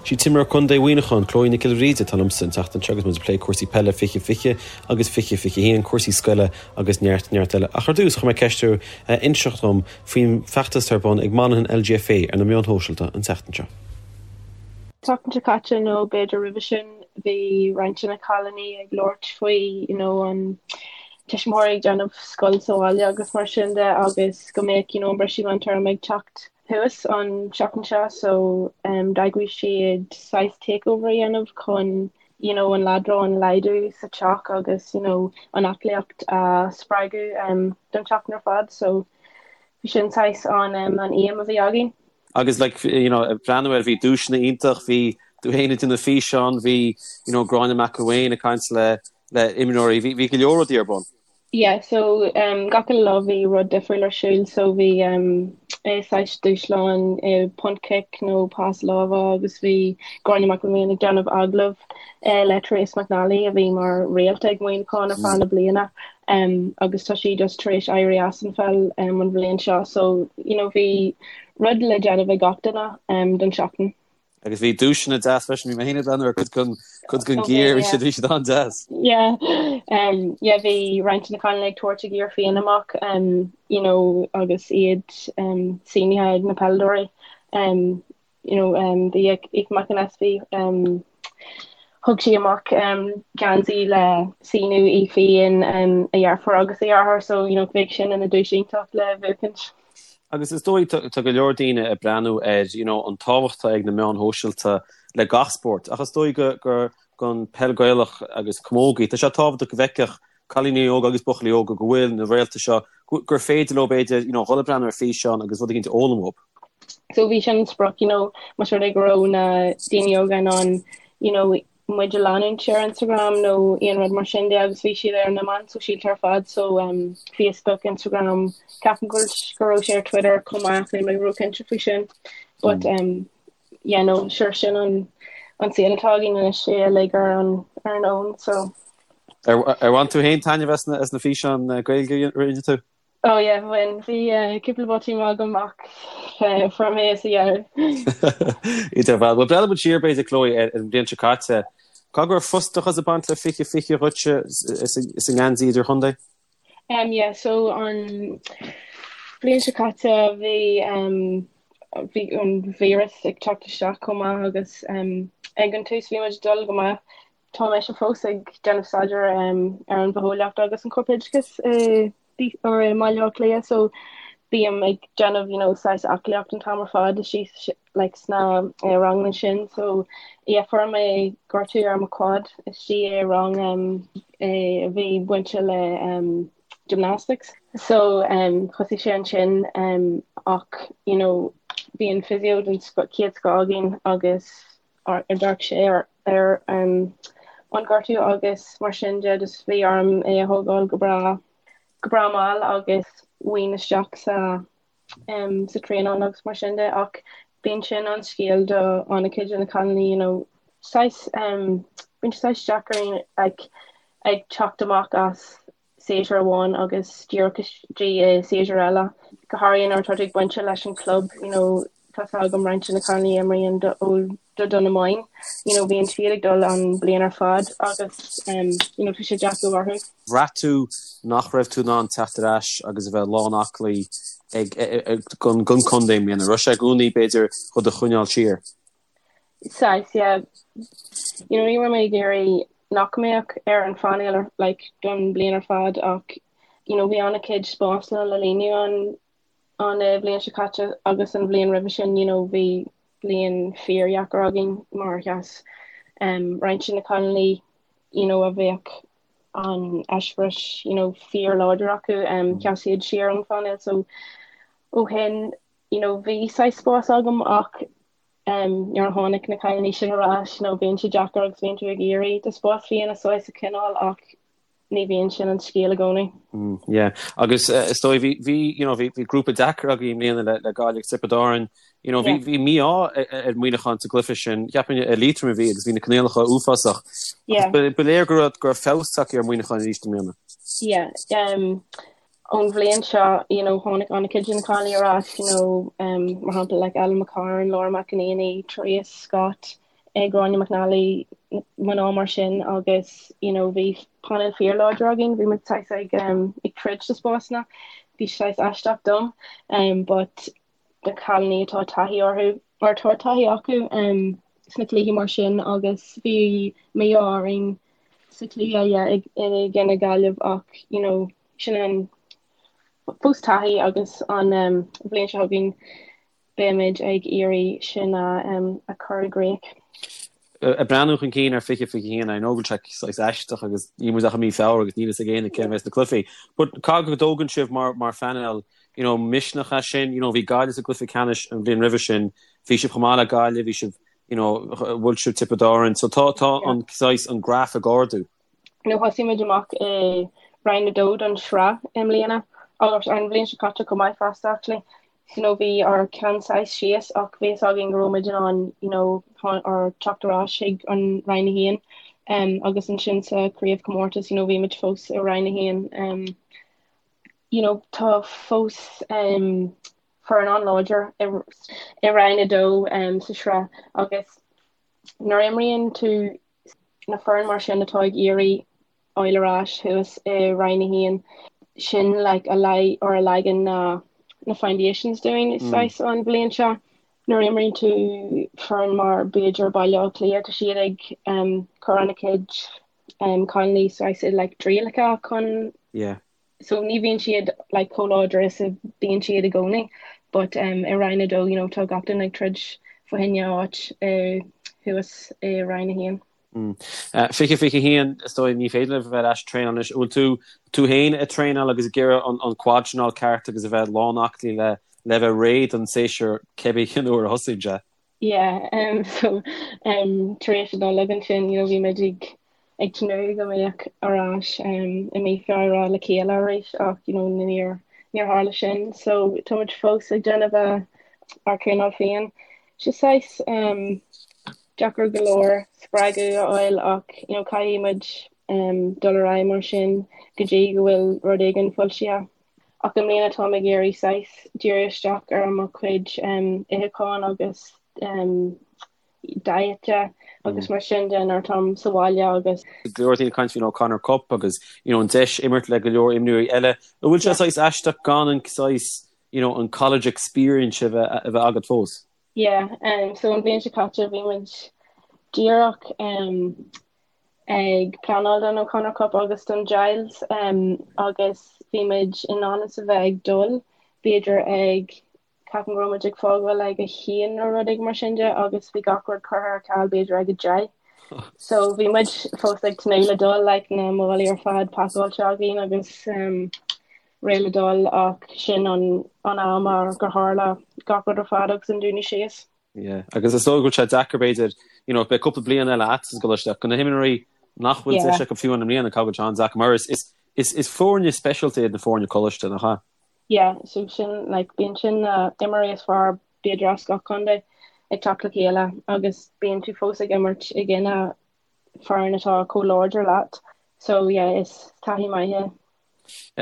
Sí t-imreoir contae Mhuineacháin, Chloe Nic Giolla Bhríde, atá liomsa an tseachtain seo agus muid ag plé cúrsaí peile 2020 agus 2021, cúrsaí scoile agus neart, neart eile. Ach ar dtús, chuir mé ceist uirthi inseacht dom faoin bhfeachtas atá ar bun ag Monaghan LGFA ar na meáin shóisialta an tseachtain seo. Tseachtain seo caite nó b'fhéidir roimhe sin, bhí roinnt de na cailíní ag labhairt faoi you know an tuismitheoirí ag déanamh scoil sa bhaile agus mar sin de agus go mbeadh you know an briseadh meántéarma ag teacht thuas an tseachtain seo so d'eagraigh siad saghas takeover a dhéanamh chun you know an leadrán a laghdú sa teach agus you know an aclaíocht a spreagadh don tseachtain ar fad so bhí sin saghas an an aidhm a bhí againn. Agus like you know ag breathnú air bhí duaiseanna iontach, bhí tú féin ag déanamh físeán, bhí you know Gráinne McElwain ag caint le le imreoirí, bhí bhí go leor rudaí ar bun. Yeah so um gach uile lá bhí rud difriúil ar siúl so bhí um eh saghas dúshlán eh punt cic nó pas láimhe agus bhí Gráinne McElwain ag déanamh agallamh eh le Therese McNally a bhí mar réalta ag Muineachán ar feadh na bliana um agus tá sí just tar éis éirí as an pheil um an bhliain seo so you know bhí rud le déanamh ag gach duine um don seachtain. Agus bhí duaiseanna deas freisin, bhí mé féin ag breathnú ar cuid den cuid den gear, bhí siad bhí siad an-deas. Yeah, um, yeah, bhí roinnt de na cailíní ag tabhairt a gear féin amach, um, you know, agus iad um, sínithe ag na peileadóirí. Um, you know, um, bhí Aoife McAnespie, um, thug sí amach um, geansaí le síniú í féin, um, a dheirfiúr agus a dheartháir, so, you know, bheadh sin ina duais iontach le buachaint. Agus is dóigh, tá go leor daoine ag breathnú ar, you know, an tábhacht atá ag na meáin shóisialta le gach spórt, ach is dóigh go, gur, don peil Gaelach agus camógaí, tá sé tábhachtach go bhfeicfeadh cailíní óga agus buachaillí óga go bhfuil na réalta seo, gur féidir leo b'fhéidir, you know, dhul ag breathnú ar físeán agus rud éicint a fhoghlaim uathu. So bhí sin an sprioc, you know, más rud é go raibh na daoine óga in ann, you know, muid a leanúint ar Instagram nó aon rud mar sin de agus bhí siad ar na meáin sóisialta ar fad so um, Facebook, Instagram, ceapaim go go raibh sé ar Twitter chomh maith níl mé róchinnte faoi sin but mm. um, yeah, no, sure sin an an saol atá againn anois é uilig ar an ar an fhón so. Ar ar bhain tú féin taitneamh as na as na físeáin eh, Gaeilge a rinne tú? Oh yeah, bhain. Bhí cúpla botún agam ach fuair mé é sa dheireadh. Idir bhal. Bhuel, breathnóidh muid siar b'fhéidir Chloe ar an bhliain seo caite. Caithfidh go raibh frustrachas ag baint le 2020 dhuitse is an ngeansaí idirchontae? Um yeah, so an bhliain seo caite bhí um bhí an víreas ag teacht isteach chomh maith agus um ag an tús bhí muid ag dul go maith. Tá mise fós ag déanamh staidéar ar an bhitheolaíocht agus an corpoideachas i mBaile Átha Cliath so bím ag déanamh you know saghas aclaíocht an t-am ar fad istigh like sna ranganna sin so yeah fuair mé gortú ar mo quad istigh i rang a bhí bainte le gymnastics so thosaigh sé ansin ach you know bhí an physio den chéad scoth againn agus d'amharc sé ar an gortú agus mar sin de just bhí orm é a thógáil go breá go breá mall agus bhain isteach sa sa traenáil agus mar sin de ach bíonn sin an scéal do an-chuid de na cailíní you know saghas bíonn sé saghas deacair ag ag teacht amach as séasúr amháin agus díreach istigh i séasúr eile, go háirithe nuair atá tú ag baint leis an club, you know, tá 's agam roinnt de na cailíní a imríonn do do Dún na Móine, you know, bíonn siad ag dul an bliain ar fad agus um, you know, tá sé deacair orthu. Bhraith tú nach raibh tú in ann teacht ar ais agus a bheith lán aclaí ag gon gon contae i mbliana, raibh sé i gcónaí b'fhéidir do do choinneáil siar? Saghas, yeah. You know, ní raibh mé ag iarraidh nach mbeadh ar an phainéal ar, like, don bliain ar fad ach, you know, bhí an-chuid spásanna le líonadh an, an eh, bhliain seo caite agus an bhliain roimhe sin, you know, bhí bliain fíordheacair againn mar sheas um, roinnt de na cailíní, you know, a bheadh an eispéireas, you know, fíorláidir acu, um, sheas siad siar ón phainéal so ó shin, you know, bhí saghas spás agam ach nuair a tháinig na cailíní sin ar ais, you know, bíonn sé deacair agus bíonn tú ag iarraidh do spás féin a saghas a choinneáil ach ní bhíonn sin an scéal i gcónaí. Mm, yeah. Agus uh, is dóigh bhí bhí you know, bhí bhí grúpa deacair agaibh i mbliana le le Gaillimh agus Tiobraid Árann. You know, bhí bhí mí-ádh ar Mhuineachán sa gcluiche sin. Cheapfainn i Liatroim a bhí agus bhí na coinníollacha uafásach. Yeah. Ba ba léir go raibh go raibh feabhas tagtha ar Mhuineachán arís i mbliana. Yeah. Um, ón bhliain seo, you know, tháinig an-chuid de na cailíní ar ais, you know, um, mar shampla like Ellen McCarn, Laura McEnaney, Therese Scott. Gráinne McNally, mná mar sin agus you know bhí painéal fíorláidir againn, bhí muid saghas ag um, ag troid do spásanna, bhí saghas aisteach dom um, but na cailíní atá taithí orthu or tá taithí acu um, sna cluichí mar sin agus bhí mí-ádh orainn sa chluiche yeah, i gcoinne Gaillimh ach you know sin an fós taithí agus an um, bhliain seo chugainn beimid ag iarraidh sin a a chur i gcrích. Ag breathnú chun cinn ar 2021, I know go bhfuil sé saghas aisteach agus níl muid ach i mí Feabhra agus níl fhios ag éinne cé a bheas sna cluichí. But caithfidh go dtógann sibh mar mar phainéal, you know, misneach as sin, you know, bhí Gaillimh sa gcluiche ceannais an bhliain roimhe sin, bhí sibh chomh maith le Gaillimh, bhí sibh, you know, bhuail sibh Tiobraid Árann, so tá tá an saghas an graf ag ardú. You know, thosaigh muid amach i Roinn 2 don sraith i mbliana agus an bhliain seo caite chomh maith fosta actually. you know bhí ár ceann saghas síos ach bhí fhios againn go raibh muid in ann you know ár teacht ar ais chuig an Roinn 1 um, agus ansin sa craobhchomórtas you know bhí muid fós i Roinn 1 um, you know tá fós um, foireann an-láidir i, i Roinn 2 um, sa sraith agus nuair a imríonn tú na foireann mar sin atá ag iarraidh fháil ar ais thuas i Roinn 1, sin like a leag or a leagann na na foundations dúinn saghas an bhliain seo. Nuair a imríonn tú foireann mar b'fhéidir Baile Átha Cliath tá siad ag um cur ana chuid um cailíní saghas i like dtrialacha chun Yeah. so ní bhíonn siad like chomh láidir is a bhíonn siad i gcónaí but um, i Roinn 2 you know, tá gach duine ag troid fá choinne áit uh, thuas i Roinn 1. Mm. Uh, 2021 is dóigh ní féidir libh a bheith ar ais ag traenáil anois. Bhfuil tú tú féin ag traenáil agus ag iarraidh an, an quad sin a fháil ceart agus a bheith lán aclaí le le bheith réidh don séasúr cibé cén uair a thosaíonn sé? Yeah, um, so um, tar éis an Nollaig ansin, you know, bhí muid ag ag tnúth go mbeadh ar ais um, i mí Feabhra le chéile arís ach you know, níor níor tharla sin. So tá muid fós ag déanamh a ár traenáil féin. Sé saghas um, deacair go leor spreagadh a fháil ach you know, caithfidh muid um, dul ar aghaidh mar sin go dtí go bhfuil rud éigin foilsithe. Ach i mbliana táim ag iarraidh saghas díriú isteach ar mo chuid itheacháin agus diet de agus mar sin de nuair atáim sa bhaile agus. Go leor daoine ag caint faoin O'Connor Cup agus you know an deis imirt le go leor imreoirí eile. An bhfuil sé saghas aisteach gan an saghas you know an college experience a bheith a bheith agat fós? Yeah, um, so an bhliain seo caite bhí muid díreach um, ag pleanáil don O'Connor Cup agus don Giles agus bhí muid i ndán is a bheith ag dul, b'fhéidir ag, ceapaim go raibh muid ag fágáil ag a haon nó rud éigin mar sin de agus bhí gach rud curtha ar ceal b'fhéidir ag a 10. So bhí muid fós ag tnúth le dul, like na málaí ar fad pacáilte againn agus réidh le dul ach sin an an am gur tharla gach rud ar fad agus an dúnadh síos. Yeah. Agus is dóigh go bhfuil sé deacair b'fhéidir, you know, beidh cúpla bliain eile agat sa gcoláiste ach do na himreoirí nach bhfuil deis acu fiú i mbliana caithfidh go bhfuil sé an-deacair mar is, is, is, is foirne speisialta iad na foirne coláiste, nach ea? Yeah, so sin, like, bíonn sin na imreoirí is fearr b'fhéidir as gach contae ag teacht le chéile agus bíonn tú fós ag imirt i gcoinne foireann atá chomh láidir leat. So yeah, is taithí maith é.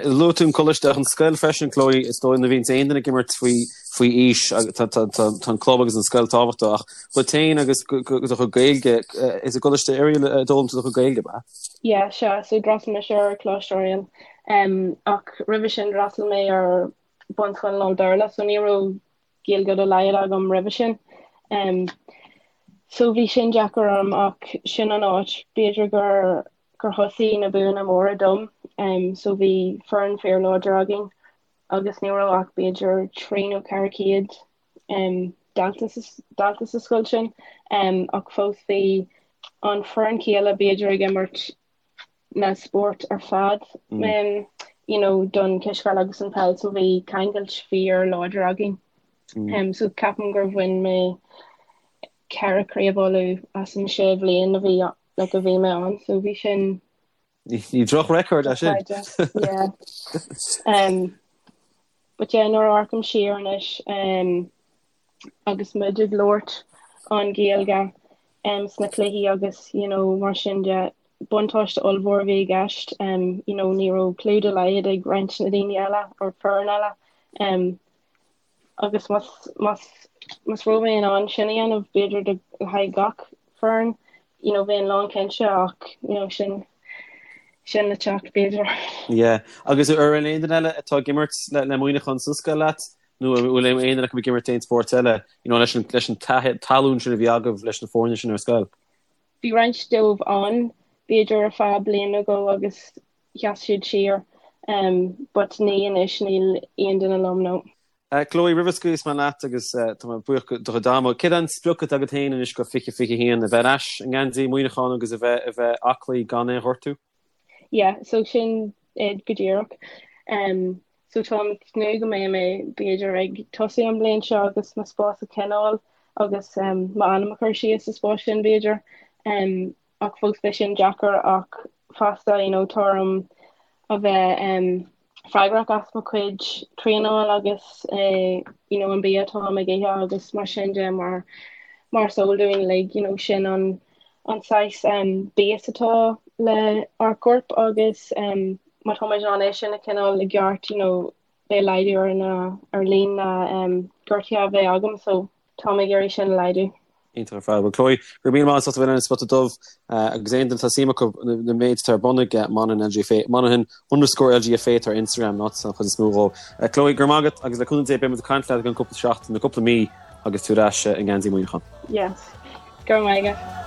Luaigh tú an coláiste ach an scoil freisin, Chloe, is dóigh nuair a bhíonns aon duine ag imirt faoi faoi aois tá tá tá tá an club agus an scoil tábhachtach ach dhuit féin agus do chuid Gaeilge is i gColáiste Oiriall a d'fhoghlaim tú do chuid Gaeilge, ab ea? Yeah, sea, so d'fhreastail mise ar Choláiste Oiriall um, ach roimhe sin d'fhreastail mé ar bunscoil lán-Bhéarla so ní raibh Gaeilge dá laghad agam roimhe sin. Um, so bhí sin deacair orm ach sin an áit b'fhéidir gur gur thosaigh na buanna móra dom so bhí foireann fíorláidir againn agus ní raibh ach b'fhéidir 3 nó 400 dalta dalta sa scoil sin ach fós bhí an foireann chéile b'fhéidir ag imirt na spóirt ar fad you know don cispheil agus an peil so bhí ceangailt fíorláidir againn. So ceapaim gur bhain mé ceithre craobh Uladh as an sé bhliain a bhí like a bhí mé ann so bhí sin Ní droch-record é sin. Yeah. Um, but yeah, nuair a amharcaim siar anois um, agus muid ag labhairt an Ghaeilge um, sna cluichí agus you know, mar sin de buntáiste ollmhór a bhí i gceist um, you know, ní raibh clue dá laghad ag roinnt na daoine eile or foireann eile um, Agus más, más, más raibh mé in ann sin a dhéanamh, b'fhéidir do, le haghaidh gach. foireann you know bheinn lán cinnte ach you know sin sin le teacht b'fhéidir. Yeah. Agus an bhfuil aon duine eile atá ag imirt le le Muineachán sa scoil leat nó an bhfuil aon duine acu ag imirt aon spórt eile you know leis an leis an tallann sin a bhí agaibh leis na foirne sin ar scoil? Bhí roinnt dóibh ann b'fhéidir ar feadh bliain nó dhó agus sheas siad siar um but ní anois níl aon duine liom no. Chloe, roimh a scaoilfeas mé leat agus tá mé buíoch do chuid ama, céard é an sprioc atá agat féin anois go 2021, a bheith ar ais i ngeansaí Mhuineacháin agus a bheith a bheith aclaí gan aon ghortú? Yeah, so sin é go díreach. Um, so táim ag tnúth go mbeidh mé b'fhéidir ag tosú an bhliain seo agus mo spás a choinneáil agus um, m'ainm a chur síos sa spás sin b'fhéidir. Um, ach fós beidh sin deacair ach fosta you know tá orm a bheith um, freagrach as mo chuid traenáil agus eh, you know an bia atáim ag ithe agus mar sin de mar mar is eol dúinn like you know sin an an saghas um, bia atá le ár gcorp agus um, má tá muid in ann é sin a choinneáil i gceart you know beidh laghdú ar na ar líon na um, gortuithe a bheidh agam so táim ag iarraidh sin a laghdú. Iontach ar fad. Bhuel Chloe, go raibh míle maith agat as ucht a bheith linn ar an Spota Dubh agus aon duine atá suim acu na méid atá ar bun ag Monaghan LGFA, Monaghan underscore LGFA atá ar Instagram an áit an chuid is mó dhó. Chloe, go raibh maith agat agus le cúnamh Dé beidh muid ag caint leat i gceann cúpla seachtain nó cúpla mí agus tú ar ais i ngeansaí Mhuineacháin. Yes. Go raibh maith agat.